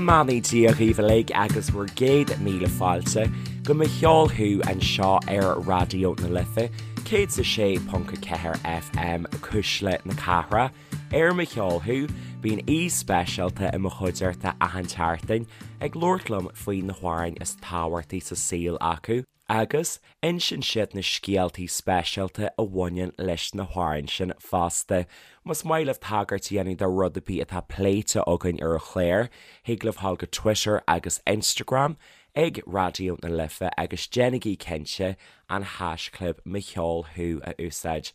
mbeannaí Dia dhaoibh uilig agus bhur gcéad míle fáilte go Mo Cheol Thú anseo ar Raidió na Life 106.4 FM, Cuisle na Cathrach. Ar Mo Cheol Thú, bíonn aoi speisialta i mo chuideachta achan tseachtain ag labhairt liom faoi na hamhráin is tábhachtaí sa saol acu. Agus insíonn siad na scéaltaí speisialta a bhaineann leis na hamhráin sin fosta. Más maith libh tagairt a dhéanamh do rud ar bith atá pléite againn ar an chlár, thig libh dhul go Twitter agus Instagram ag Raidió na Life agus déanaigí cinnte an haischlib Mo Cheol Thú a úsáid.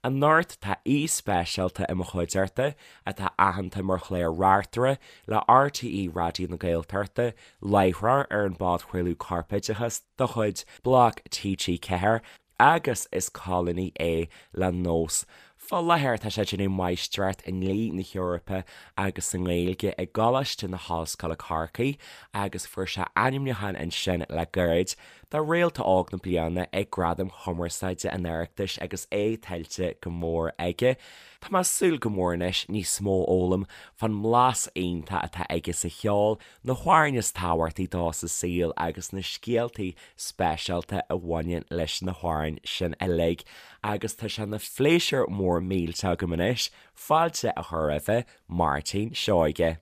Anocht tá aoi speisialta i mo chuideachta atá aitheanta mar chlár-reachtaire le RTÉ Raidió na Gaeltachta, láithreoir ar an bpodchraoladh Corpoideachas de chuid Bloc TG4 agus is colúnaí é le Nós. Fá láthair tá sé ag déanamh máistreacht i nDlí na hEorpa agus sa nGaeilge i gColáiste na hOllscoile Corcaigh agus fuair sé ainmniúchán ansin le gairid do Réalta Óg na Bliana ag Gradaim Chumarsáide an Oireachtais agus é tuillte go mór aige. Tá mé ag súil go mór anois níos mó a fhoghlaim fán mblas iontach atá aige sa cheol, na hamhráin is tábhachtaí dó sa saol agus na scéaltaí speisialta a bhaineann leis na hamhráin sin uilig agus tá sé ina phléisiúr mór millteach agam anois fáilte a chur roimhe, Máirtín Seoige.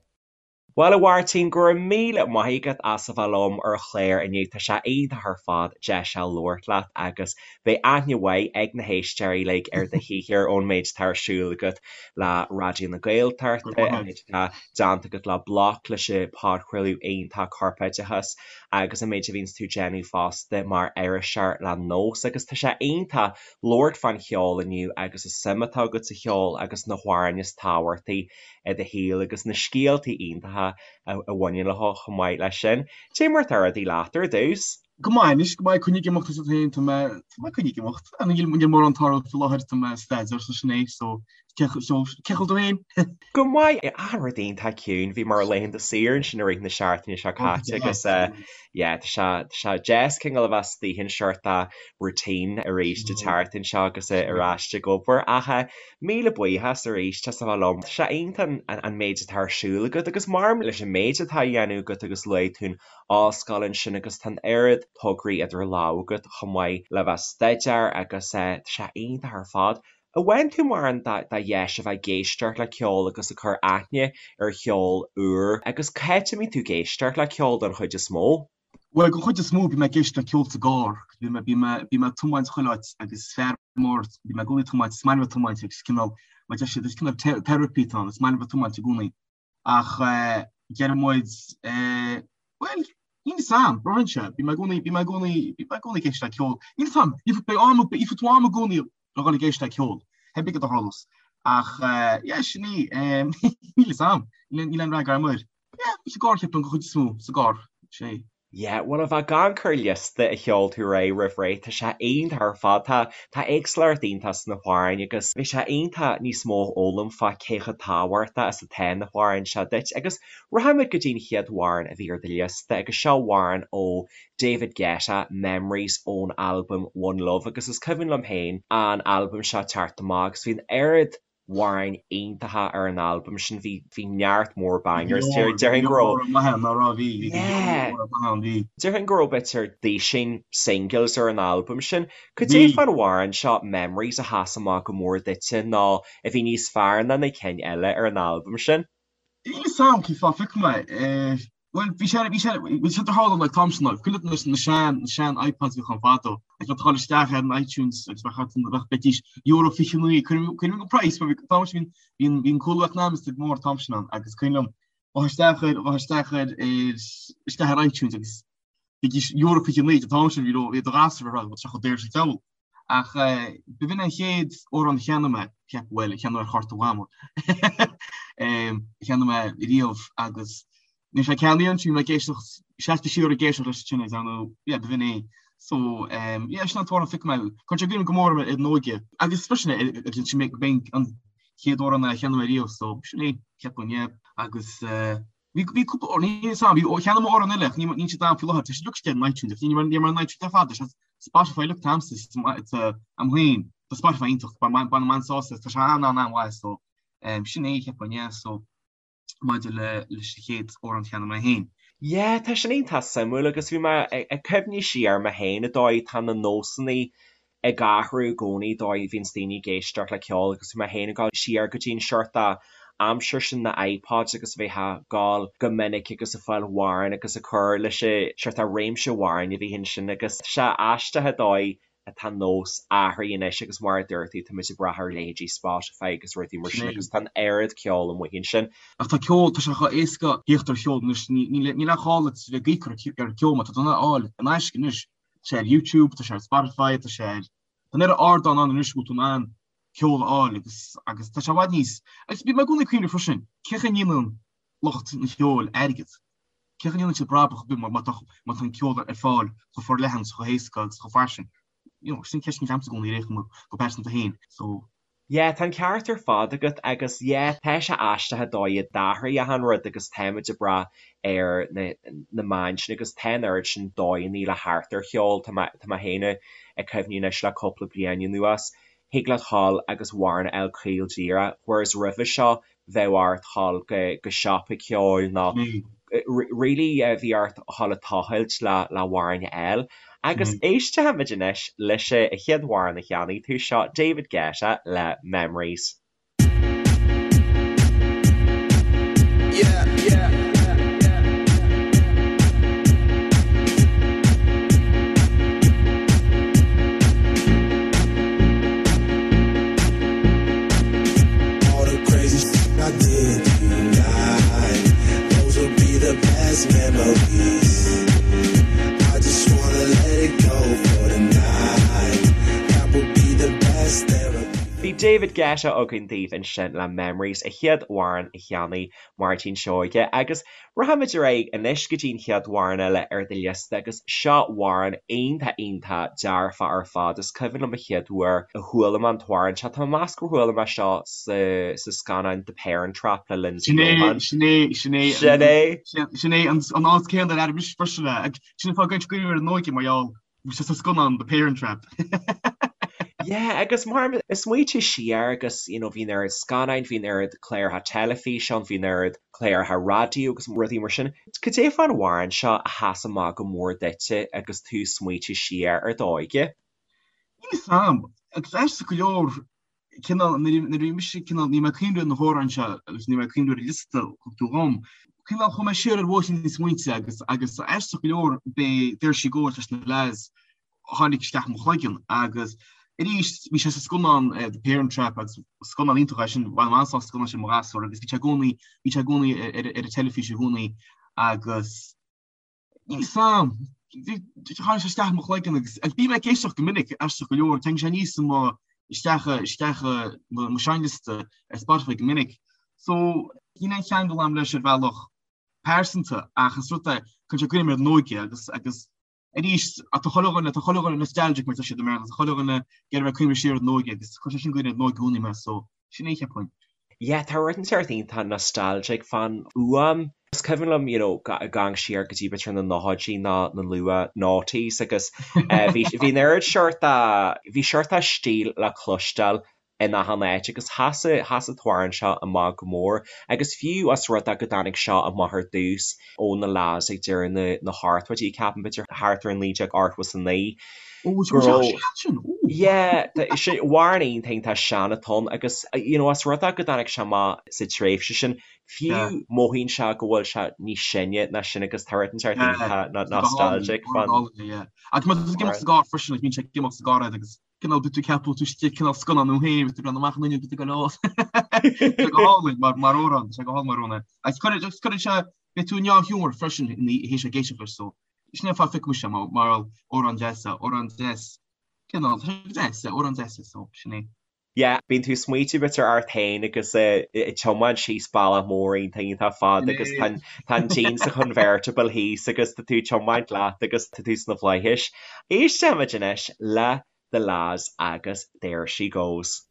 Bhuel a Mháirtín, go raibh míle maith agat as a bheith liom ar an chlár inniu, tá sé iontach ar fad deis a labhairt leat agus Beidh aithne mhaith ag na héisteoirí uilig ar do shaothar ón méid atá ar siúl agat le Raidió na Gaeltachta, an méid atá déanta agat le Bloc, leis an podchraoladh iontach Corpoideachas agus an méid a bhíonns tú ag déanamh fosta mar iriseoir le Nós. Agus tá sé iontach labhairt fán cheol inniu agus an suim atá agat sa cheol agus na hamhráin is tábhachtaí i do shaol agus na scéaltaí iontacha a bhaineann leo chomh maith leis sin. Cé mar atá rudaí leat ar dtús? Go maith anois, go maith, coinnigh ag imeacht is féin, tá mé, tá mé coinnigh ag imeacht. Níl, níl mórán ag tarlú faoi láthair, tá mé ag staidéar so sin é, so cé chomh tú féin? Go maith, achan rud iontach ciúin, bhí mé ar laethanta saoire ansin i rith na seachtaine seo caite agus yeah, tá sé, tá sé deas cineál a bheith istigh in sort of routine arís an tseachtain seo agus ar ais ag obair ach míle buíochas arís as a bheith liom. Tá sé iontach an méid atá ar siúl agat agus maidir leis an méid atá á dhéanamh agat agus luaigh tú an ollscoil ansin agus tá an oiread tograí idir lámha agat chomh maith le bheith ag staidéar agus tá sé iontach ar fad. An bhfaigheann tú mórán de dheis a bheith ag éisteacht le ceol agus ag cur aithne ar cheol úr agus cá háit a mbíonn tú ag éisteacht le ceol don chuid is mó? Bhuel, don chuid is mó bím ag éisteacht le ceol sa gcarr. Bím bím bím ag tiomáint chuile áit agus fear mór bím i gcónaí ag tiomáint, is maith liom a bheith ag tiomáint agus cineál mar deir siad is cineál therapy atá ann, is maith liom a bheith ag tiomáint i gcónaí. Ach deir muid, bhuel, níl fhios a'm, braitheann sé, bím i gcónaí, bím i gcónaí, bím i gcónaí ag éisteacht le ceol. Níl fhios a'm, ní beidh am, beidh tú am i gcónaí le dhul ag éisteacht le ceol, pé ar bith cad a tharlós. Ach yeah, sin í, níl fhios a'm, níl aon fhreagra a'm air. Yeah, sa gcarr ceapaim, go chuid is mó, sa gcarr, sin é. Yeah, bhuel a bheith ag amharc ar liosta a sheol tú ar aghaidh roimh ré, tá sé iontach ar fad. Tá, tá éagsúlacht iontach sna hamhráin agus bhí sé iontach níos mó a fhoghlaim fá cé chomh tábhachtach is atá na hamhráin seo duit. Agus rachaimid go dtí an chéad amhrán a bhí ar do liosta agus seo amhrán ó David Guetta, Memories ón albam One Love agus is cuimhin liom féin an albam seo teacht amach agus bhí an oiread amhráin iontacha ar an albam sin, bhí bhí neart mór bangers. Déarfainn go raibh Déarfainn go raibh b'fhéidir duisín singles ar an albam sin. Cad é fán amhrán seo Memories a sheas amach go mór duitse nó a bhí níos fearr ná na cinn eile ar an albam sin? Níl fhios a'm cén fáth phioc mé é. Bhuel, bhí sé, bhí sé, bhí sé de tharla like t-am sin, like, cuimhin leat na sean, na sean iPods a bhíodh ann fadó, agus bheadh tú ag dul isteach ar an iTunes agus bheadh ort, bheadh, bheidís euro 29, cuimhin, cuimhin an price, mar bhí, t-am sin, bhí, bhí an cúlú eacnamaíochta go mór t-am sin ann, agus cuimhin liom, bheadh isteach ar, bheadh isteach ar, ar, isteach ar iTunes agus bhídís euro 29, an t-am sin bhí, bhí do ghasúr ar bheadh sé chomh daor sa cheol. Ach b'in an chéad amhrán a cheannaigh mé, cheap, bhuel, a cheannaigh ar chárta Mhamó, a cheannaigh mé riamh agus níl sé ceannaithe ansin, bhí mé ag éisteacht, seasta siar ag éisteacht leis sin, I know, yeah, b'in é. So, yeah, sin an t-amhrán a phioc mé. Cuireann sé i gcuimhne go mór orm ar an óige. Agus freisin, sin mé, b'in an chéad amhrán a cheannaigh mé riamh, so sin é, ceapaim, yeah. Agus Bhí bhí cúpla amhrán, níl fhios a'm, bhí cheannaigh mé amhrán eile ach níl níl siad a'm faoi láthair, tá siad uilig istigh ar an iTunes ach ní ní mar an iTunes ar fad, tá Spotify uilig a'msa tá a'm féin, tá Spotify iontach, bainim an-sásamh as, tá sé an-an-an-mhaith so sin é cheapfainn yeah so. maidir le leis an chéad amhrán a cheannaigh mé féin. Yeah, tá sin iontach suimiúil agus bhí mé ag cuimhniú siar mé féin an dóigh tá na nósanna ag athrú i gcónaí dóigh a bhíonns daoine ag éisteacht le ceol agus bhí mé féin ag dul siar go dtí an seort aimsir sin na iPods agus a bheith ag gabháil go minic agus ag fáil amhráin agus ag cur leis an seort réimse amhráin a bhí ansin agus tá sé aisteach an dóigh atá nós athraithe anois agus mar a dúirt tú táimid ag brath ar leithéidí Spotify agus rudaí mar sin agus tá an oiread ceoil amuigh ansin. Ach tá ceol, tá sé chomh éasca theacht ar cheol anois, níl aon ghá duit a bheith ag íoc ar ceol mar tá tú in ann é a fháil in aisce anois. Tá sé ar YouTube, tá sé ar Spotify, tá sé ar, tá an oiread ardán ann anois go bhfuil tú in ann ceol a fháil agus, agus tá sé i bhfad níos, agus bím i gcónaí ag cuimhneamh freisin, cén chaoi a ndéanann lucht an cheoil airgead? Cén chaoi a ndéanann siad brabach ar bith má tá má tá an ceol ar fáil chomh forleathan is chomh héasca agus chomh fairsing? You know, sin ceist agamsa i gcónaí ar aon chuma go pearsanta féin. So. Yeah, tá an ceart ar fad agat agus yeah, tá sé aisteach an dóigh a d'athraigh achan rud agus táimid ag brath ar na na meáin sin agus tá an oiread sin dóigheanna le theacht ar cheol, tá mé tá mé féin ag cuimhniú anois le cúpla bliain anuas, thig leat dhul agus amhrán a fháil caol díreach, whereas roimhe seo bheadh ort dhul go siopa ceoil nó really bhí ort dhul ag tochailt le le amhrán a fháil. Agus éistfimid anois leis an chéad amhrán a cheannaigh tú, seo David Guetta le Memories. Yeah, yeah. Bhí David Guetta againn daoibh ansin le Memories, an chéad amhrán a cheannaigh Máirtín Seoige agus Rachaimid ar aghaidh anois go dtí an chéad amhrán eile ar do liosta agus seo amhrán iontach iontach dearfach ar fad. Is cuimhin liom an chéad uair a chuala mé an t-amhrán seo, tá mé ag meas gur chuala mé seo sa sa scannán The Parent Trap le Lindsay Sin é, Lohan. sin é, sin é, Sin é! sin é an an áit céanna ar airigh mise freisin é. Ag sin an fáth go gcuireann sé cuimhne ar an óige mar gheall Bhí sé sa scannán The Parent Trap. Yeah, agus mar ag smaoitiú siar agus you know bhí an oiread scannáin, bhí an oiread cláracha teilifíse ann, bhí an oiread cláracha raidió agus rudaí mar sin. Cad é fán amhrán seo a sheas amach go mór duitse agus tú ag smaoitiú siar ar d'óige? Níl fhios a'm, agus aisteach go leor, cineál, nuair a bhí mise cineál, ní mé ag cuimhneamh ar na hamhráin seo agus ní mé ag cuimhneamh ar an liosta a thug tú dhom, cineál chuaigh mé siar ar bhóithríní na smaointe agus agus aisteach go leor b'é There She Goes leis na La's a tháinig isteach i mo chloigeann agus arís bhí sé sa scannán The Parent Trap agus scannán iontach é sin, bhain mé an-sult as an scannán sin i mo ghasúr agus bhí sé i gcónaí, bhí sé i gcónaí ar an teilifís i gcónaí agus Níl fhios a'm. Tháinig sé isteach i mo chloigeann agus agus bím ag éisteacht go minic, aisteach go leor, tagann sé aníos i mo, isteach, isteach i mo seinnliosta ar Spotify go minic. So, níl aon cheangal a'm leis ar bhealach pearsanta ach is rud é, cuireann sé i gcuimhne mé ar an óige agus, agus arís, tá chuile dhuine, tá chuile dhuine nostalgic mar atá siad i mBéarla, tá chuile dhuine ag iarraidh bheith ag cuimhneamh siar ar an óige agus cuireann sé sin i gcuimhne ar an óige i gcónaí mé, so sin é cheapfainn. Yeah, tá rud inteacht iontach nostalgic fán fhuaim. Is cuimhin liom, you know, ag amharc siar go dtí b'fhéidir na nóchaidí nó na luath noughties agus bhí bhí an oiread seort bhí seort stíl le cloisteáil in achan áit agus sheas sheas an t-amhrán seo amach go mór agus fiú os rud é go dtáinig seo amach ar dtús ó na La's ag deireadh na na hochtóidí ceapaim b'fhéidir thart ar 1989 Ó, is go raibh sin, ó. Yeah, sin amhrán iontach iontach sean atá ann agus you know os rud é go dtáinig sé amach sa tréimhse sin, fiú mothaíonn sé go bhfuil sé níos sine ná sin agus tá rud inteacht iontach nostalgic fán. Agus má tá tú ag imeacht sa gcarr freisin, like, bíonn sé ag imeacht sa gcarr agus cineál bíonn tú ag ceapadh tú istigh cineál scannán thú féin, bíonn tú ag breathnú amach an fhuinneog, bíonn tú ag dul, Tá sé go hálainn mar mar amhrán, tá sé go hálainn mar amhrán. Agus cuireann sé, beidh tú i ndea-ghiúmar freisin ina théis ag éisteacht leis so Sin é an fáth a phioc mise mar amhrán deas é, amhrán deas, cineál, tá sé deas, amhrán deas é, so sin é. Yeah, bíonn tú ag smaoitiú b'fhéidir ort féin agus ag tiomáint síos bealach mór iontach iontach fada agus tá tá an díon sa chonvertible thíos agus tá tú ag tiomáint leat agus tá tú sna flaithis. Éistfimid anois le The La's agus There She Goes.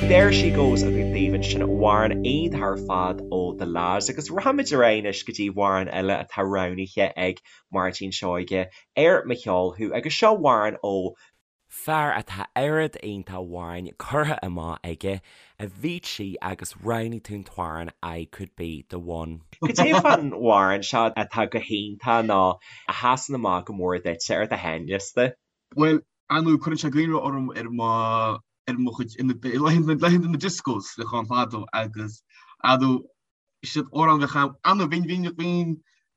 There She Goes againn daoibh ansin, amhrán iontach ar fad ó The La's agus rachaimid ar aghaidh anois go dtí amhrán eile atá roghnaithe ag Máirtín Seoige ar Mo Cheol Thú agus seo amhrán ó fear atá oiread iontach amhráin curtha amach aige, Avicii agus roghnaigh tú an t-amhrán I Could Be The One. Cad é fán amhrán seo atá go hiontach nó a sheasann amach go mór duitse ar do sheinnliosta? Bhuel, ar ndóigh, cuireann sé i gcuimhne orm ar mo ar mo chuid laethanta na discos le chán fadó agus adú siad amhrán bheadh ann ann bhín bhín bhín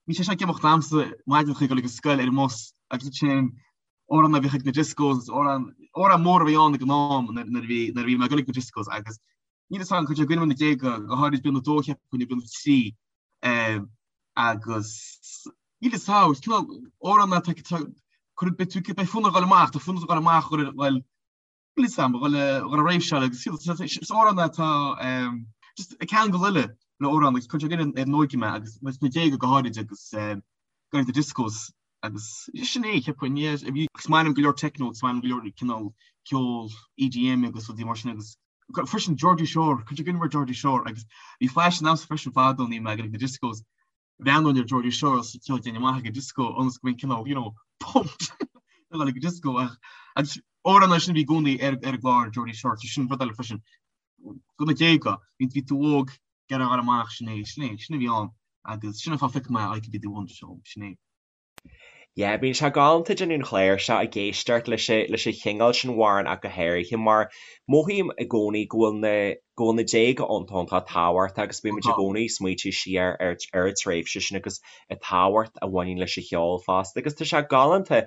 bhí sé seo ag imeacht a'msa maidin chuig dul ag an scoil ar an mbus agus sin amhrán a bhíodh ag na discos amhrán amhrán mór a bhí ann ag an am nuair a bhí nuair a bhí mé ag dul ag na discos agus níl fhios agam cuireann sé i gcuimhne na déaga go háirid bliain a dó cheapfainn nó bliain a trí agus níl fhios agam is cineál amhrán atá cuireann beidh tú beidh fonn ort a dhul amach tá fonn ort a dhul amach a dhul níl fhios agam a dhul a dhul a réimseáil agus is amhrán atá just ag ceangal uile le amhrán agus cuireann sé i gcuimhne ar an óige mé agus na déaga go háirid agus go na discos agus sin é cheapfainn yeah is maith liom go leor techno is maith liom go leor cineál ceol EDM agus rudaí mar sin agus freisin Geordie Shore cuireann sé i gcuimhne ar Geordie Shore agus bhí faisean a'msa freisin fadó nuair a bhí mé ag na discos bhreathnóinn ar Geordie Shore agus ceol déanamh amach ag an disco ionas go mbeinn cineál you know pumped a dhul ag an disco ach agus amhrán sin bhí i gcónaí ar ar an gclár Geordie Shore so sin rud eile freisin go na déaga bhí bhí tú óg ag iarraidh a dhul amach sin é sin é sin a bhí ann agus sin an fáth a phioc mé I Could Be The One so sin é. Yeah, bíonn sé galánta déanamh an chláir seo ag éisteacht leis leis an chineál sin amhrán ach go háirithe mar mothaím i gcónaí go bhfuil na go bhfuil na déaga iontach iontach tábhachtach agus bímid i gcónaí ag smaoitiú siar ar ar an tréimhse sin agus an tábhacht a bhaineann leis an cheol fosta agus tá sé galánta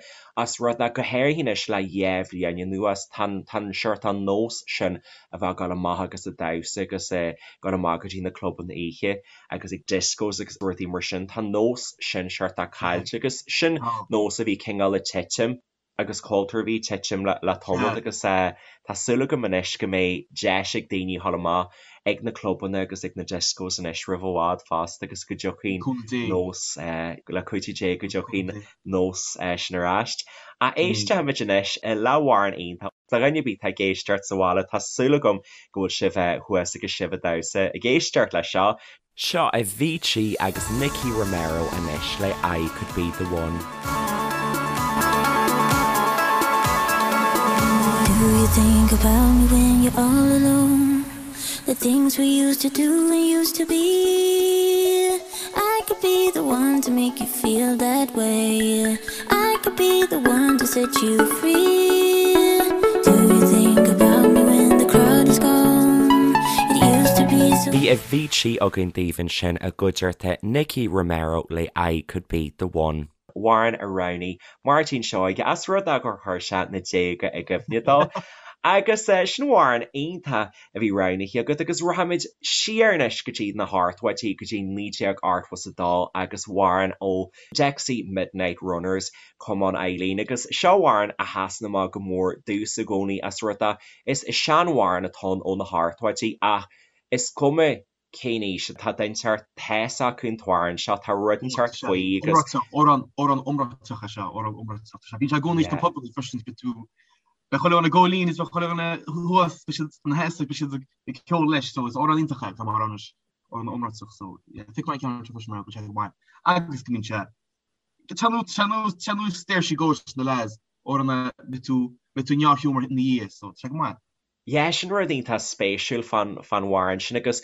as rud é go háirithe anois le dhá bhliain anuas tá an tá an seort an nós sin a bheith ag dul amach agus ag damhsa agus ag dul amach go dtí na clubanna oíche agus ag discos agus rudaí mar sin, tá an nós sin seort caillte agus sin nós a bhí cineál ag titim agus cultúr a bhí ag titim le tamall agus tá súil agam anois go mbeidh deis ag daoine dhul amach ag na clubanna agus ag na discos anois roimh i bhfad fosta agus go dtiocfaidh an nós, le cuidiú Dé go dtiocfaidh an nós sin ar ais. Ach éistfimid anois le hamhrán iontach. Do dhuine ar bith atá ag éisteacht sa bhaile, tá súil agam go bhfuil sibh thuas agus sibh ag damhsa ag éisteacht leis seo. Seo Avicii agus Nicky Romero anois le I Could Be The One. Do you think about me when you're all alone? The things we used to do and used to be I could be the one to make you feel that way I could be the one to set you free Do you think about me when the crowd is gone? It used to be so Bhí Avicii againn daoibh ansin i gcuideachta Nicky Romero le I Could Be The One. Amhrán a roghnaigh Máirtín Seoige as rud é gur chuir sé na déaga i gcuimhne dó. Agus sin amhrán iontach a bhí roghnaithe agat agus rachaimid siar anois go dtí na hochtóidí, go dtí 1982 agus amhrán ó Dexys Midnight Runners, Come On Eileen agus seo amhrán a sheasann amach go mór domhsa i gcónaí as rud é is seanamhrán atá ann ó na hochtóidí ach is cuma cén aois atá duine inteacht, tá fhios acu an t-amhrán seo, tá rud inteacht faoi agus. Iomráiteach, amhrán, amhrán iomráiteach é seo, amhrán iomráiteach. Tá sé, bíonn sé i gcónaí sna pubanna freisin, beidh tú, beidh chuile dhuine ag ól lín is beidh chuile dhuine thuas, beidh siad ina sheasamh, beidh siad ag ceol leis, so is amhrán iontach é, tá mar amhrán, amhrán iomráiteach, so yeah, phioc mé an ceann seo freisin mar go bhfuil sé go maith agus go mbíonn sé, tá nós, tá nós, tá nós There She Goes na lads, amhrán a mbeidh tú, mbeidh tú i ndea-ghiúmar ina dhiaidh, so tá sé go maith. Yeah, sin rud iontach spéisiúil fán amhrán sin agus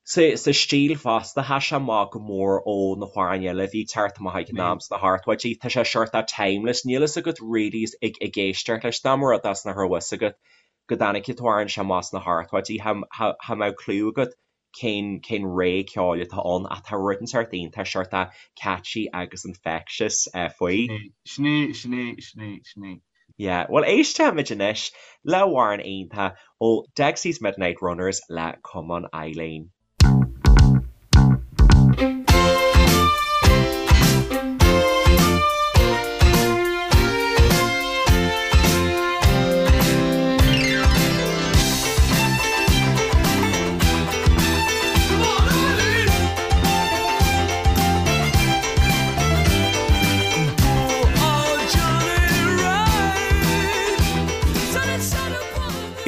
sa stíl fosta, tá sé amach go mór ó na hamhráin eile a bhí ag teacht amach ag an am sna hochtóidí. Tá sé sort of timeless, níl fhios agat really ag éisteacht leis, dá mba rud é nach raibh fhios agat go dtáinig an t-amhrán seo amach sna hochtóidí, cha mbeadh clue agat cén cén ré ceoil atá ann ach tá rud inteacht iontach sort of catchy agus infectious faoi. Sin é, sin é, sin é, sin é. Yeah, bhuel éistfimid anois le hamhrán iontach ó Dexys Midnight Runners le Come On Eileen.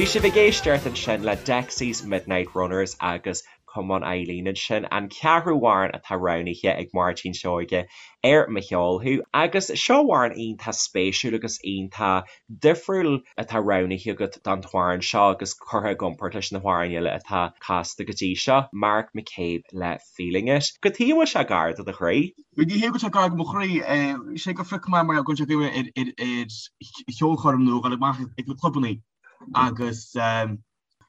Bhí sibh ag éisteacht ansin le Dexys Midnight Runners agus Come On Eileen ansin, an ceathrú amhrán atá roghnaithe ag Máirtín Seoige ar Mo Cheol Thú. Agus seo amhrán iontach spéisiúil agus iontach difriúil atá roghnaithe agat don t-amhrán seo agus curtha i gcomparáid leis na hamhráin eile atá casta go dtí seo, Mark McCabe le Feeling It. Cad chuige a bhfuil sé gar do do chroí? Ní hé go bhfuil sé gar do mo chroí, sé gur phioc mé mar go bhfuil sé ar ar cheolchoirm nó dhul amach ag na clubannaí agus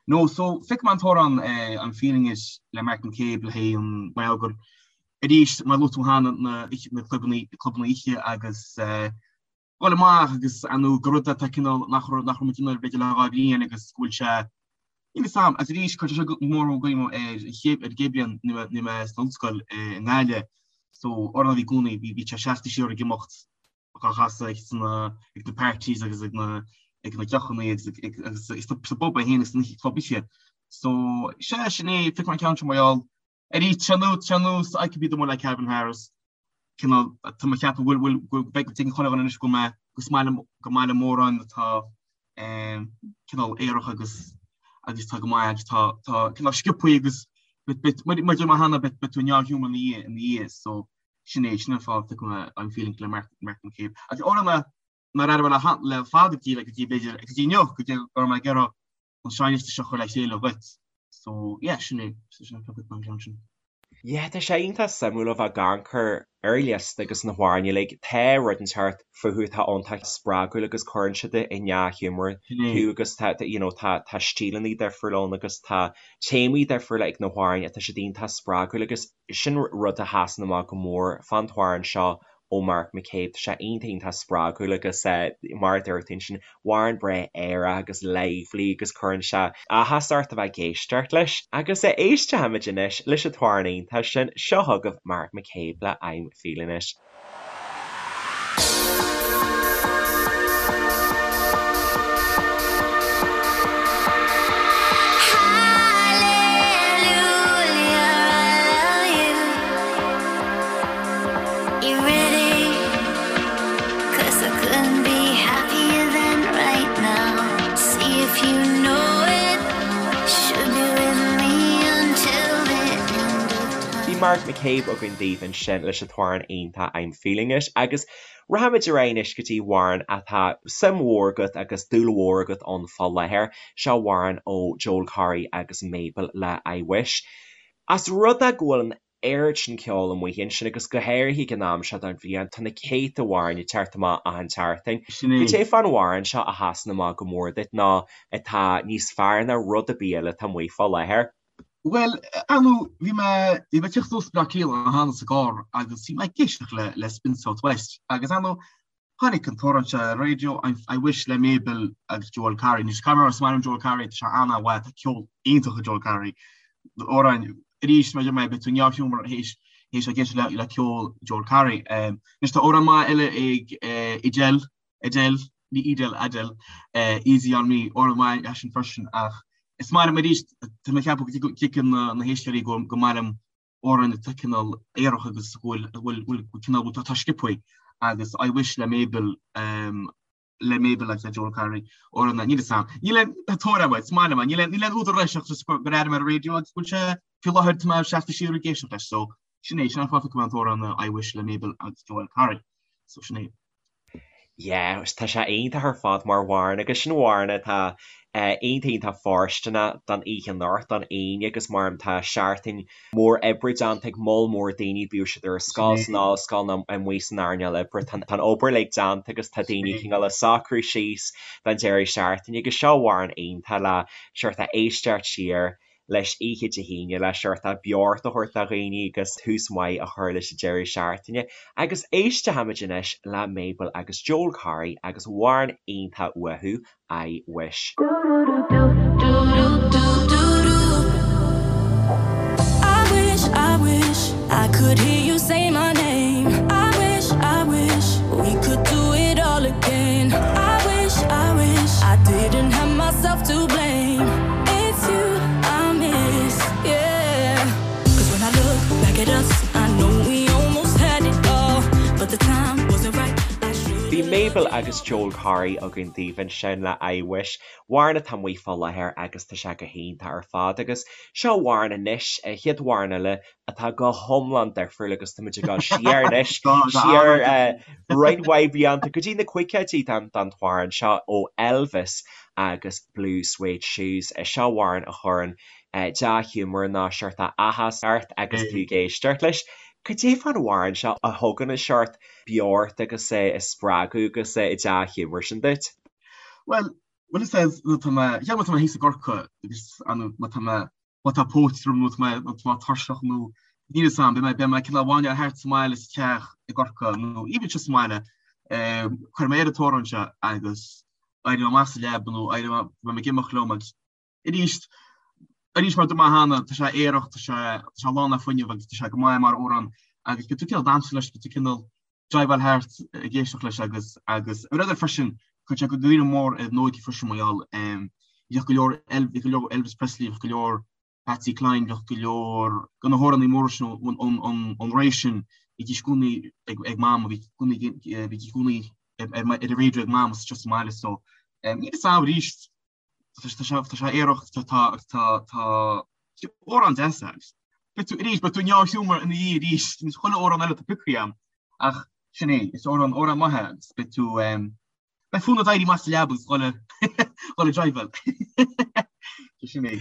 no so phioc mé an t-amhrán I'm Feeling It le Mark McCabe le haghaidh an mar gur arís mar luaigh tú cheana na na clubannaí clubanna oíche agus dhul amach agus ar ndóigh gur rud atá cineál nach raibh nach raibh muid in ann b'fhéidir le 2 bhliain agus go bhfuil sé Níl fhios a'm, agus arís cuirtear seo go mór i gcuimhne ar an chéad ar an gcéad bhliain nuair a bhí mé san ollscoil i nGaillimh so amhrán a bhí i gcónaí bhí bhí sé seasta siar ag imeacht dhá chasadh ag sna ag na parties agus ag na ag na deochanna agus ag ag agus sa bpub é féin agus sna club oíche. So sea sin é phioc mé an ceann seo mar gheall Arís, tá sé ar nós I Could Be The One le Calvin Harris, cineál, tá mé ag ceapadh go bhfuil, go bhfuil, beidh, tuigeann chuile dhuine anois go bhfuil mé, go is maith liom, go maith liom amhráin atá cineál aerach agus, agus tá go maith agus tá, tá cineál sciobthaí agus bit, bit, mar a deir mé cheana, beidh, beidh tú i ndea-ghiúmar ina dhiaidh, ina dhiaidh, so sin é, sin an fáth a phioc mé I'm Feeling le Mark, Mark McCabe. Agus amhrán a, nár airigh mé le, le fada go dtí, go dtí b'fhéidir, go dtí inniu, go dtí go raibh mé ag iarraidh an seinnliosta seo a chur le chéile dhuit. So, yeah, sin é, sin an pioc an ceann sin. Yeah, tá sé iontach suimiúil a bheith ag amharc ar an liosta agus na hamhráin uilig. Tá rud inteacht fúthu atá iontach spreagúil agus cuireann siad i ndea-ghiúmar thú agus tá, you know, tá, tá stíleanna difriúla ann agus tá téamaí difriúla ag na hamhráin atá siad iontach spreagúil agus sin rud a sheasann amach go mór fán t-amhrán seo ó Mark McCabe. Tá sé iontach iontach spreagúil agus mar a dúirt tú ansin, amhrán breá aerach agus lively agus cuireann sé áthas ort a bheith ag éisteacht leis. Agus éistfimid anois leis an t-amhrán iontach sin, seo chugaibh Mark McCabe le I'm Feeling It. Bhí Mark McCabe againn daoibh ansin leis an t-amhrán iontach I'm Feeling It agus rachaimid ar aghaidh anois go dtí amhrán atá suim mhór agat agus dúil mhór agat ann fá láthair. Seo amhrán ó Joel Corry agus Mabel le I Wish. As rud é go bhfuil an oiread sin ceoil amuigh ansin agus go háirithe ag an am seo den bhliain, tá na céadta amhráin ag teacht amach achan tseachtain. Sin é. Cad é fán amhrán seo a sheasann amach go mór duit nó atá níos fearr ná rud ar bith eile atá amuigh fá láthair? Bhuel, ar ndóigh, bhí mé, bhí mé ag tíocht suas Bleá Cliath cheana sa gcarr agus bhí mé ag éisteacht le, le Spin South West agus ar ndóigh, Tháinig an t-amhrán seo ar an raidió, I Wish le Mabel agus Joel Corry. Anois, caithfidh mé a rá, is maith liom Joel Corry, tá sé an-mhaith, tá ceol iontach ag Joel Corry. Amhráin, arís, mar a deir mé, beidh tú i ndea-ghiúmar théis théis ag éisteacht le le ceol Joel Corry. Anois, tá amhrán maith eile ag Adele, Adele, ní Edel, Adele, Easy on Me, amhrán maith é sin freisin ach is maith liom arís, tá mé ag ceapadh go dtuigeann na héisteoirí go go maith liom amhráin atá cineál aerach agus go bhfuil bhfuil cineál bhfuil tá sciobthaí agus I Wish le Mabel le Mabel agus le Joel Corry amhrán níl fhios a'm. Níl aon tóir agam, is maith liom é, níl aon níl aon údar leis ach just gur airigh mé ar an raidió agus go bhfuil sé faoi láthair tá mé seasta siar ag éisteacht leis so sin é sin an fáth a phioc mé an t-amhrán I Wish le Mabel agus Joel Corry so sin é. Yeah, tá sé iontach ar fad mar amhrán agus sin amhrán atá iontach iontach fóirsteanach don oíche anocht, don Aoine agus mar tá seachtain mór oibre déanta ag moll mór daoine, bíodh siad ar scoil, san ollscoil nó amuigh san earnáil oibre, tá an obair uilig déanta agus tá daoine cineál ag socrú síos don deireadh seachtaine agus seo amhrán iontach le sórt a éisteacht siar leis oíche Dé hAoine le sórt beocht a thabhairt do dhaoine agus tús maith a chur leis an deireadh seachtaine. Agus éistfimid anois le Mabel agus Joel Corry agus amhrán iontach uathu, I Wish. I wish, I wish I could hear you say my name. I wish, I wish we could do it all again. I wish, I wish I didn't have myself to blame. It's you I miss, yeah. 'Cause when I look back at us, I know we almost had it all, but the time wasn't right. I should Bhí Mabel Mabel agus Joel Corry againn daoibh ansin le I Wish. Amhrán atá amuigh fá láthair agus tá sé go hiontach ar fad. Agus seo amhrán anois, an chéad amhrán eile atá go hiomlán difriúil agus táimid ag dul siar anois, siar roinnt mhaith blianta go dtí na caogaidí don amhrán seo ó Elvis agus Blue Suede Shoes. Seo amhrán a chuireann dea-ghiúmar nó seort áthas ort agus tú ag éisteacht leis. Cad é fán amhrán seo a thugann an seort beocht agus spreagadh agus dea-ghiúmar sin duit? Bhuel, bhuel is é nuair atá mé, cheap má tá mé thíos i gCorcaigh agus má tá mé, má tá póit orm nó tá mé, nó tá mé tuirseach nó níl fhios a'm, beidh mé, beidh mé cineál ag máinneáil thart sa mbaile sa teach i gCorcaigh nó even sa mbaile, cuirfidh mé ar an t-amhrán seo agus éireoidh mé amach as an leaba nó éireoidh mé, beidh mé ag imeacht liom agus Arís, arís mar a dúirt mé cheana, tá sé aerach, tá sé, tá sé lán le fuinneamh agus tá sé go maith mar amhrán agus beidh tú cineál damhsa leis, beidh tú cineál driveáil thart ag éisteacht leis agus, agus ar rud eile freisin, chuir sé go gcuimhne mór ar an óige freisin mar gheall, bhíodh go leor, bhíodh go leor Elvis Presley, bhíodh go leor Patsy Cline, bhíodh go leor de na hamhránaí móra sin ón ré sin, bhídís i gcónaí ag, ag Mam, bhí i gcónaí, bhídís i gcónaí ar, ar an raidió ag Mam anseo sa mbaile so, níl fhios a'm arís, Tá sé aerach tá tá tá amhrán deas é. Beidh tú arís beidh tú i ndea-ghiúmar ina dhiaidh arís níos chuile amhrán eile atá pioctha agam ach sin é is amhrán amhrán maith é agus beidh tú beidh fonn ort éirí amach as an leaba agus dhul dhul ag driveáil. Sin é.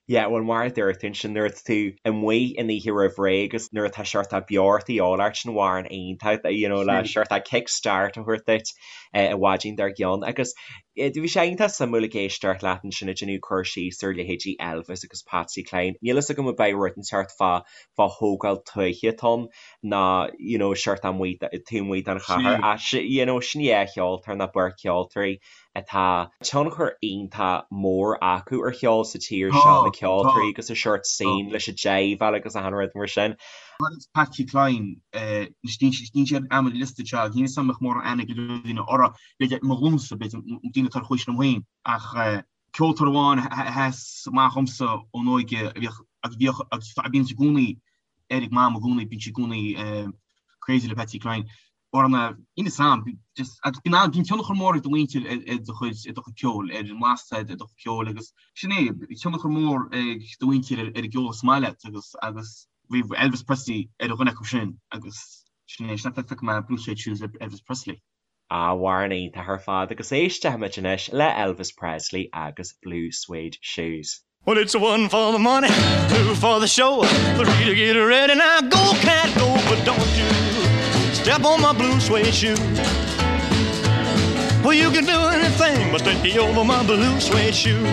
Yeah, bhuel mar a dúirt tú ansin nuair atá tú amuigh an oíche roimh ré agus nuair atá seort beocht de dhíobháil ort sin amhrán iontach you know le seort kick start a thabhairt duit an mhaidin dár gcionn agus bhí sé iontach suimiúil ag éisteacht leat ansin ag déanamh cur síos ar leithéidí Elvis agus Patsy Cline. Níl fhios agam ab é rud inteacht fá fá thógáil tuaithe atá ann ná you know seort amuigh taobh amuigh den chathair ach you know sin dhá cheoltóir nó beirt cheoltóirí atá tionchar iontach mór acu ar cheol sa tír seo, na ceoltóirí agus an seort scene leis an jiveáil agus achan rud mar sin. Patsy Cline, níl sé ar an liosta seo, níl fhios agam an mbeadh mórán aithne ag go leor daoine orthu, b'fhéidir mo ghlúnsa, b'fhéidir daoine atá ar chomhaois liom féin, ach ceoltóir amháin a sheas amach dhomsa ón óige a bhíodh agus bhíodh agus a bíonn i gcónaí ar ag Mam i gcónaí, bíonn sí i gcónaí crazy le Patsy Cline. Orna, níl fhios a'm, just, agus bíonn an, bíonn tionchar mór ag do mhuintir ar, ar do chuid, ar do chuid ceoil, ar an mblas ar do chuid ceoil agus sin é, bhí tionchar mór ag do mhuintir ar, ar an gceol is maith leat agus, agus bhí Elvis Presley ar dhuine acu sin agus sin é, sin é phioc mé Blue Suede Shoes Elvis Presley. Amhrán iontach ar fad agus éistfimid anois le Elvis Presley agus Blue Suede Shoes. Well it's one for the money, two for the show, three to get ready now go cat go, but don't you step on my blue suede shoe. Well you can do anything but stay over my blue suede shoe.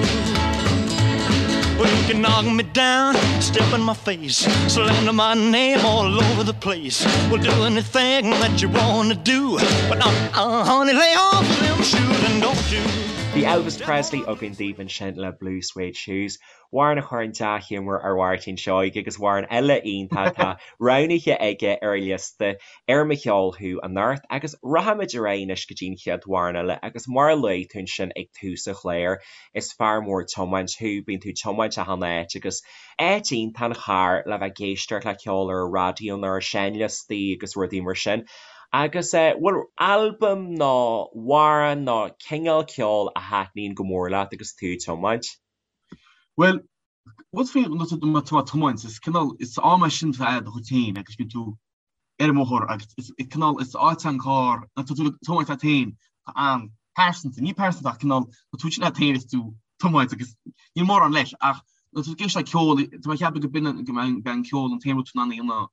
Well you can knock me down, step in my face, slander my name all over the place. Well do anything that you wanna do, but uh, uh, honey lay off them shoes and don't you. Bhí Elvis Presley againn daoibh ansin le Blue Suede Shoes, amhrán a chuireann dea-ghiúmar ar Mháirtín Seoighe agus amhrán eile iontach atá roghnaithe aige ar a liosta ar Mo Cheol Thú anocht agus rachaimid ar aghaidh anois go dtí an chéad amhrán eile agus mar a luaigh tú ansin ag tús an chláir, is fear mór tiomáint thú, bíonn tú ag tiomáint achan áit agus áit iontach an charr le bheith ag éisteacht le ceol ar an raidió nó ar seinnliostaí agus rudaí mar sin. Agus bhfuil albam nó amhrán nó cineál ceoil a thaitníonn go mór leat agus tú ag tiomáint? Bhuel, rud faoi nuair atá tú ag tiomáint, is cineál, is am é sin atá do chuid féin agus bíonn tú ar an mbóthar agus is cineál, is áit an carr, nuair atá tú ag tiomáint leat féin, tá an-pearsanta, ní pearsanta ach cineál, tá tú sin leat féin is tú ag tiomáint agus níl mórán leis ach nuair atá tú ag éisteacht le ceol, tá mé ag ceapadh go b'in go mbeidh an ceol an t-aon rud in ann a dhéanamh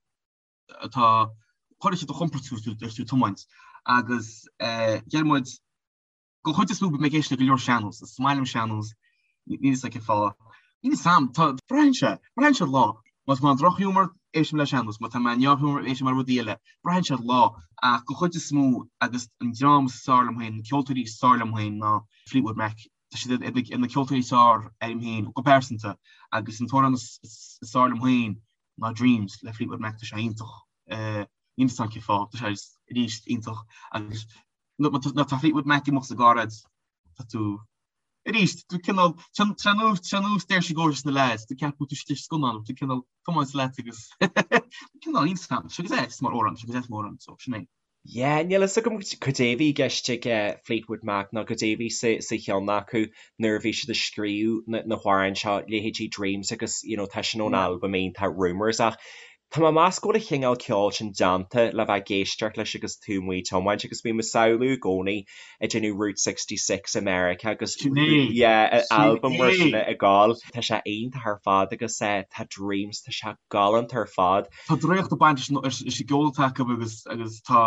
atá cuirfidh sé do chompord tú agus tú ag tiomáint agus deir muid den chuid is mó bím ag éisteacht le go leor sean-nós, is maith liom sean-nós, níl fhios a'm cén fáth. Níl fhios a'm, tá, braitheann sé, braitheann sé ar lá. Má tá mé i ndrochghiúmar, éistim le sean-nós, má tá mé i ndea-ghiúmar, éistim le rudaí eile. Braitheann sé ar lá, ach den chuid is mó agus an dream is fearr liom féin, na ceoltóirí is fearr liom féin ná Fleetwood Mac. Tá siad ar na ceoltóirí is fearr orm féin go pearsanta agus an t-amhrán is fearr liom féin ná Dreams le Fleetwood Mac tá sé iontach níl fhios a'm cén fáth tá sé arís iontach agus nuair tá Fleetwood Mac ag imeacht sa gcarr agat tá tú arís tú cineál ar nós Saoirse Gorgeous na lads tú ceapadh tú istigh scannán tú cineál tiomáint leat agus cineál níl fhios a'm sé go deas mar amhrán sé go deas mar amhrán so sin é. Yeah, níl fhios agam cad é a bhí i gceist ag Fleetwood Mac nó cad é a bhí sa cheann acu nuair a bhí siad ag scríobh na hamhráin seo, leithéidí Dreams agus you know tá sin ón albam iontach Rumours ach tá mé ag meas go bhfuil an chineál ceoil sin déanta le bheith ag éisteacht leis agus tú amuigh ag tiomáint agus bím ag samhlú i gcónaí ag déanamh Route 66 i Meiriceá agus Sin é, yeah, sin albam mar sin é. ag gabháil. Tá sé iontach ar fad agus tá Dreams, tá sé galánta ar fad. Tá draíocht ag baint leis an gceol atá acu agus agus tá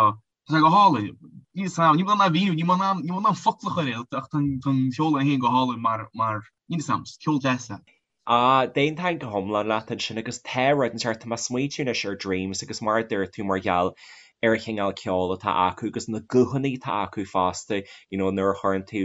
sé go hálainn. Níl 'fhios a'm, níl mé in ann a mhíniú, níl mé in ann, níl mé in ann focal a chur air ach tá an ceol é féin go hálainn mar, mar, níl 'fhios a'm, ceol deas é. Ah, d'aontóinn go hiomlán leat ansin agus tá rud inteacht, tá mé ag smaoitiú anois ar Dreams agus mar a dúirt tú mar gheall ar an chineál ceoil atá acu agus na guthanna atá acu fosta, you know nuair a chuireann tú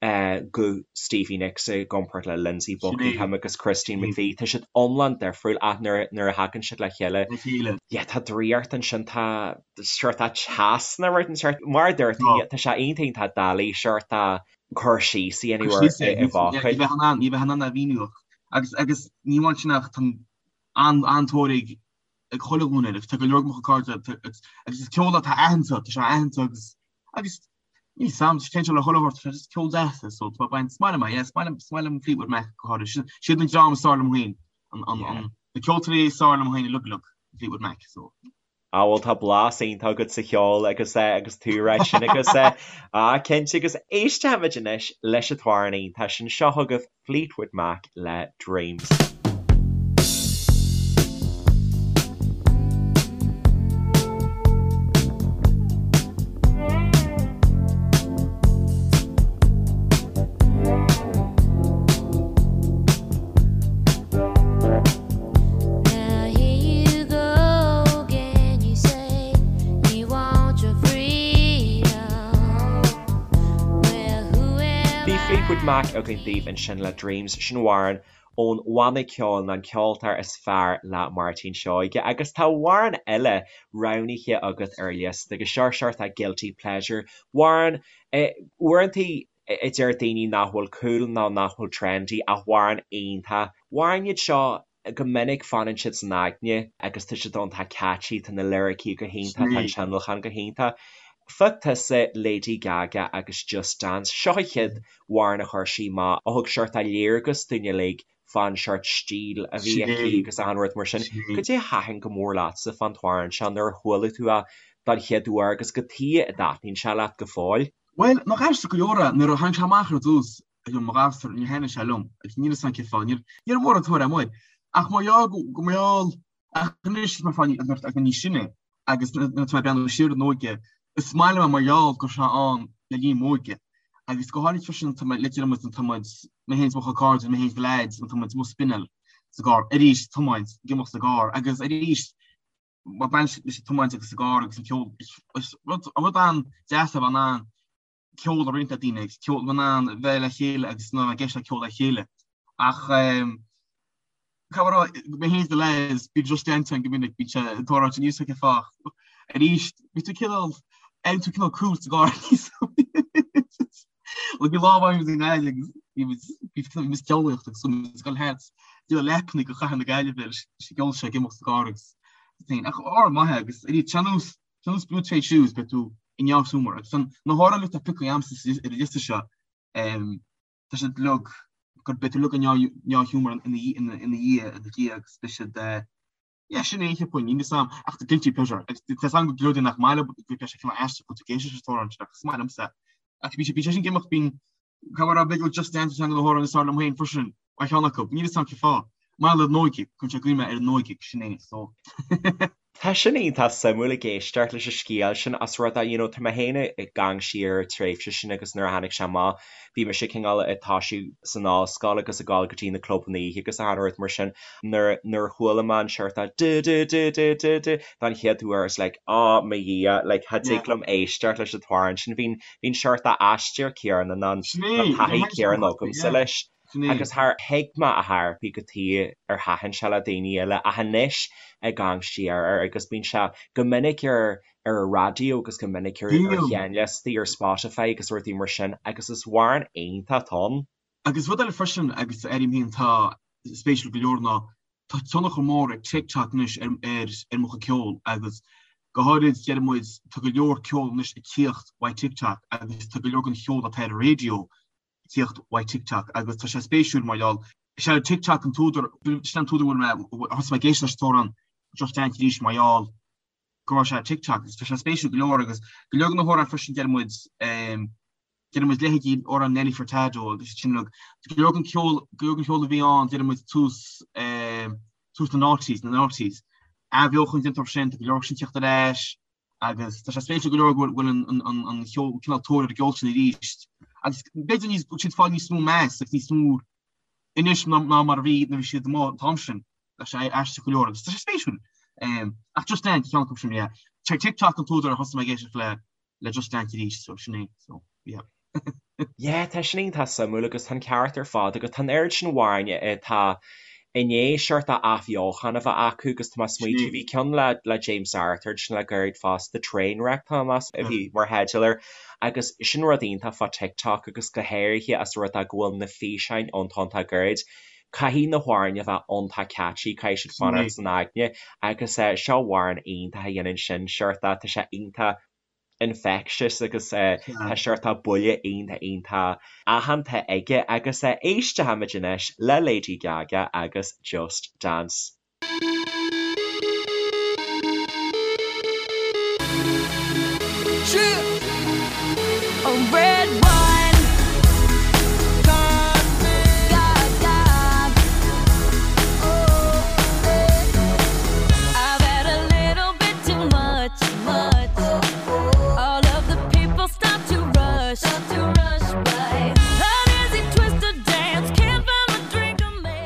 guth Stevie Nicks i gcomparáid le Lindsey Buckingham agus Christine McVie. Tá siad iomlán difriúil ach nuair a thagann siad le chéile, yeah, tá draíocht ansin, tá sórt teas nó rud inteacht. Mar a dúirt tú, tá sé iontach iontach doiligh sórt cur síos a dhéanamh air i bhfocail. Ní bheith in ann, ní bheith in ann a mhíniú ach agus agus ní amháin sin ach tá an-tóir ag ag chuile ghlúin air agus tá go leor de mo chuid cairde agus is ceol atá aitheanta, tá sé aitheanta agus agus Níl 'fhios a'm, téann sé le chuile shórt, tá sé just ceol deas é, so tá mé ag baint, is maith liom é, yeah, is maith liom, is maith liom Fleetwood Mac go háirithe, sin, siad an dream is fearr liom féin, an, an, an, na ceoltóirí is fearr liom féin uilig uilig, Fleetwood Mac, so. Ah bhuel tá blas iontach agat sa cheol agus eh agus tú ag rá sin agus eh ah cinnte agus éistfimid anois leis an t-amhrán iontach sin, seo chugaibh Fleetwood Mac le Dreams. Now here you go again, you say you want your freedom. Well, who am Bhí Fleetwood Mac againn daoibh ansin le Dreams, sin amhrán ón bhanna ceoil nó an ceoltóir is fearr le Máirtín Seoige agus tá amhrán eile roghnaithe agat ar an liosta agus seo sórt guilty pleasure amhrán uaireanta a deir daoine nach bhfuil cool nó nach bhfuil trendy ach amhrán iontach. Amhráin iad seo go minic fanann siad san aigne agus tá siad iontach catchy, tá na liricí go hiontach, tá an tionlacan go hiontach. Phioc tusa Lady Gaga agus Just Dance, seo an chéad amhrán a chuir sí amach a thug sórt léargas dúinn uilig fán sórt stíl a bhí aici agus achan rud mar sin. Cad é a thaitin go mór leatsa fán t-amhrán seo nuair a chuala tú é don chéad uair agus cad chuige a dtaitníonn sé leat go fóill? Bhuel, nach aisteach go leor é, nuair a tháinig sé amach ar dtús, ag mo ghasúr, níor thaitnigh sé liom, agus níl 'fhios a'm cén fáth, níor raibh mórán tóir amuigh air. Ach mar gheall go mar gheall, ach anois mar fáth agus mé níos sine, agus nuair atá mé ag breathnú siar ar an óige, is maith liom é mar gheall go raibh sé ann le linn m'óige. Agus go háirid freisin tá mé le déanamh muid, tá muid, mé féin is mo chuid cairde, mé féin is na leaids, tá muid amuigh ag spinneáil sa gcarr, arís tiomáint, ag imeacht sa gcarr, agus arís mar baint leis an tiomáint agus sa gcarr agus an ceol, is rud rud an-deas a bheith in ann ceol a roinnt le daoine agus ceol in ann bheith le chéile agus ná ag éisteacht le ceol le chéile. Ach cá rá mé féin is na lads bíonn Just Dance ann go minic bíonn sé ag tarlúint níos cén fáth. Arís bhí tú cineál aon tú cineál cool sa gcarr níos Like bhí lá amháin i nGaillimh agus bhí muid bhí muid ag ceolaíocht agus muid ag dul thart de leapanna go chathair na Gaillimhe leis an gceol seo ag imeacht sa gcarr agus féin ach amhrán maith é agus arís ar nós ar nós Blue Suede Shoes beidh tú i ndea-ghiúmar agus an na hamhráin atá pioctha a'msa ar an liosta seo tá siad uilig gur beidh tú uilig i ndea-ghiúmar ina dhiaidh ina dhiaidh agus beidh siad yeah sin é cheapfainn níl 'fhios a'm ach the guilty pleasure agus tá 'fhios a'm go leor daoine nach maith leo go bhfuil sé cineál aisteach go bhfuil tú ag éisteacht leis an t-amhrán sin ach is maith liomsa ach bhí sé bhí sé sin ag imeacht bíonn cá bhfuil b'fhéidir Just Dance ceann de na hamhráin is fearr liom féin freisin mar cheann acu níl 'fhios a'm cén fáth mar gheall ar an óige cuireann sé i gcuimhne ar an óige sin é so. Tá sin iontach suimiúil ag éisteacht leis an scéal sin as rud é, you know, tá mé féin ag amharc siar ar an tréimhse sin agus nuair a tháinig sé amach bhí mise cineál ag toisiú san ollscoil agus ag dul go dtí na clubanna oíche agus achan rud mar sin. Nuair nuair a chuala mé an seort du du du du du du don chéad uair I was like oh mo Dhia like cha dtig liom éisteacht leis an t-amhrán sin bhí bhí an seort aistear céanna nó an taithí céanna agamsa leis. Agus char thuig mé ar chor ar bith cad chuige ar thaitin sé le daoine eile ach anois ag amharc siar air agus bíonn sé go minic ar ar an raidió agus go minic ar ar sheinnliostaí ar Spotify agus rudaí mar sin agus is amhrán iontach atá ann. Agus rud eile freisin agus airím féin atá spéisiúil go leor ná tá tionchar mór ag TikTok anois ar ar ar mo chuid ceoil agus. Go háirid, deir muid, tá go leor ceol anois ag tíocht uaidh TikTok agus tá go leor den cheol atá ar an raidió ag tíocht uaidh TikTok agus tá sé spéisiúil mar gheall, is é TikTok an t-údar, sin an t-údar a bhfuil mé, thosaigh mé ag éisteacht leis an t-amhrán Just Dance arís mar gheall go raibh sé ar TikTok agus tá sé spéisiúil go leor agus go leor de na hamhráin freisin deir muid, Deir muid leithéidí amhrán Nelly Furtado agus sin uilig. Go leor den cheol, go leor den cheol a bhí ann, deir muid tús, tús na noughties, na noughties. Athbheochan déanta orthu sin, tá go leor sin ag tíocht ar ais agus tá sé spéisiúil go leor go bhfuil an, an, an cheol, cineál tóir ar an gceol sin arís. Agus b'fhéidir níos, bhfuil siad ag fáil níos mó meas agus níos mó anois ná, ná mar a bhí nuair a bhí siad amuigh an t-am sin. Tá sé aisteach go leor agus tá sé spéisiúil. Ach Just Dance, ceann acu sin, yeah. TikTok an t-údar a thosaigh mé ag éisteacht le le Just Dance arís, so sin é, so yeah. Yeah, tá sin iontach suimiúil agus tá an ceart ar fad agat. Tá an oiread sin amhráin atá i ndiaidh seort athbheochan a bheith acu agus tá mé ag smaoitiú, bhí ceann le le James Arthur ansin le gairid fosta, Trainwreck tá mé ag meas a bhí mar theideal air agus sin rud iontach fá TikTok agus go háirithe as rud é go bhfuil na físeáin iontach iontach gairid. Caithfidh na hamhráin a bheith iontach catchy, caithfidh siad fanacht san aigne agus seo amhrán iontach a dhéanann sin, seort tá sé iontach infectious agus tá seort buille iontach iontach aitheanta aige agus éistfimid anois le Lady Gaga agus Just Dance.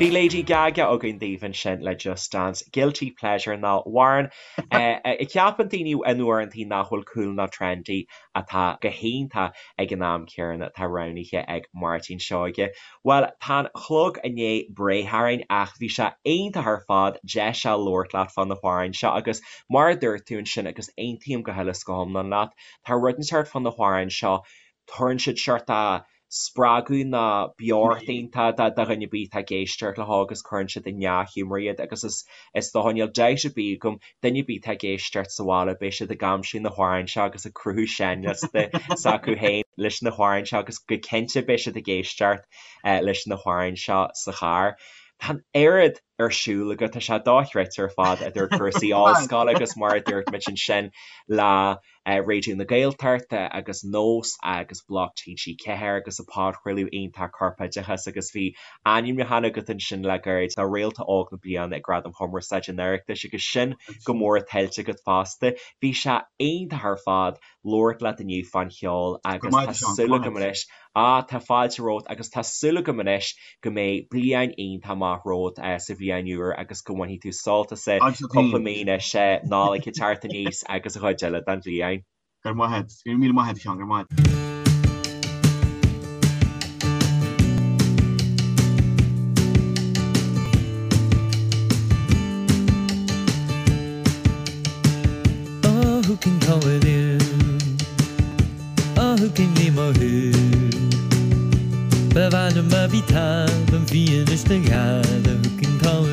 Bhí Lady Gaga againn daoibh ansin le Just Dance, guilty pleasure nó amhrán a cheapann daoine in uaireantaí nach bhfuil cool ná trendy atá go hiontach ag an am céanna atá roghnaithe ag Máirtín Seoige. Bhuel, tá an clog i ndiaidh breith orainn ach bhí sé iontach ar fad deis a labhairt leat fá na hamhráin seo agus mar a dúirt tú ansin agus aontaím go huile is go hiomlán leat, tá rud inteacht fá na hamhráin seo, tugann siad seort spreagadh nó beocht iontach do dhuine ar bith atá ag éisteacht leo agus cuireann siad i ndea-ghiúmar iad agus is is dócha níl dabht ar bith agam duine ar bith atá ag éisteacht sa bhaile beidh siad ag aimsiú na hamhráin seo agus ag cruthú seinnliosta s'acu féin leis na hamhráin seo agus go cinnte beidh siad ag éisteacht leis na hamhráin seo sa charr. Tá an oiread ar siúl agat, tá sé dochreidte ar fad idir cúrsaí ollscoile agus mar a dúirt muid ansin le Raidió na Gaeltachta agus Nós agus Bloc TG4 agus an podchraoladh iontach Corpoideachas agus bhí ainmniúchán agat ansin le gairid do Réalta Óg na Bliana ag Gradaim Chumarsáide an Oireachtais agus sin go mór tuillte agat fosta. Bhí sé iontach ar fad labhairt leat inniu fán cheol agus tá súil agam anois Á, tá fáilte romhat agus tá súil agam anois go mbeidh bliain iontach maith romhat sa bhliain úr agus go mbainfidh tú sult as cúpla mí anois, Nollaig ag teacht aníos agus an chuid eile den bhliain. Go raibh maith agat. Go raibh míle maith agat, a Sheáin. Go raibh maith agat. Oh, who can call it in? Oh, who can leave mo who? Ba mhaith liom a bhí talamh bhí anois na gheala, who can call it in?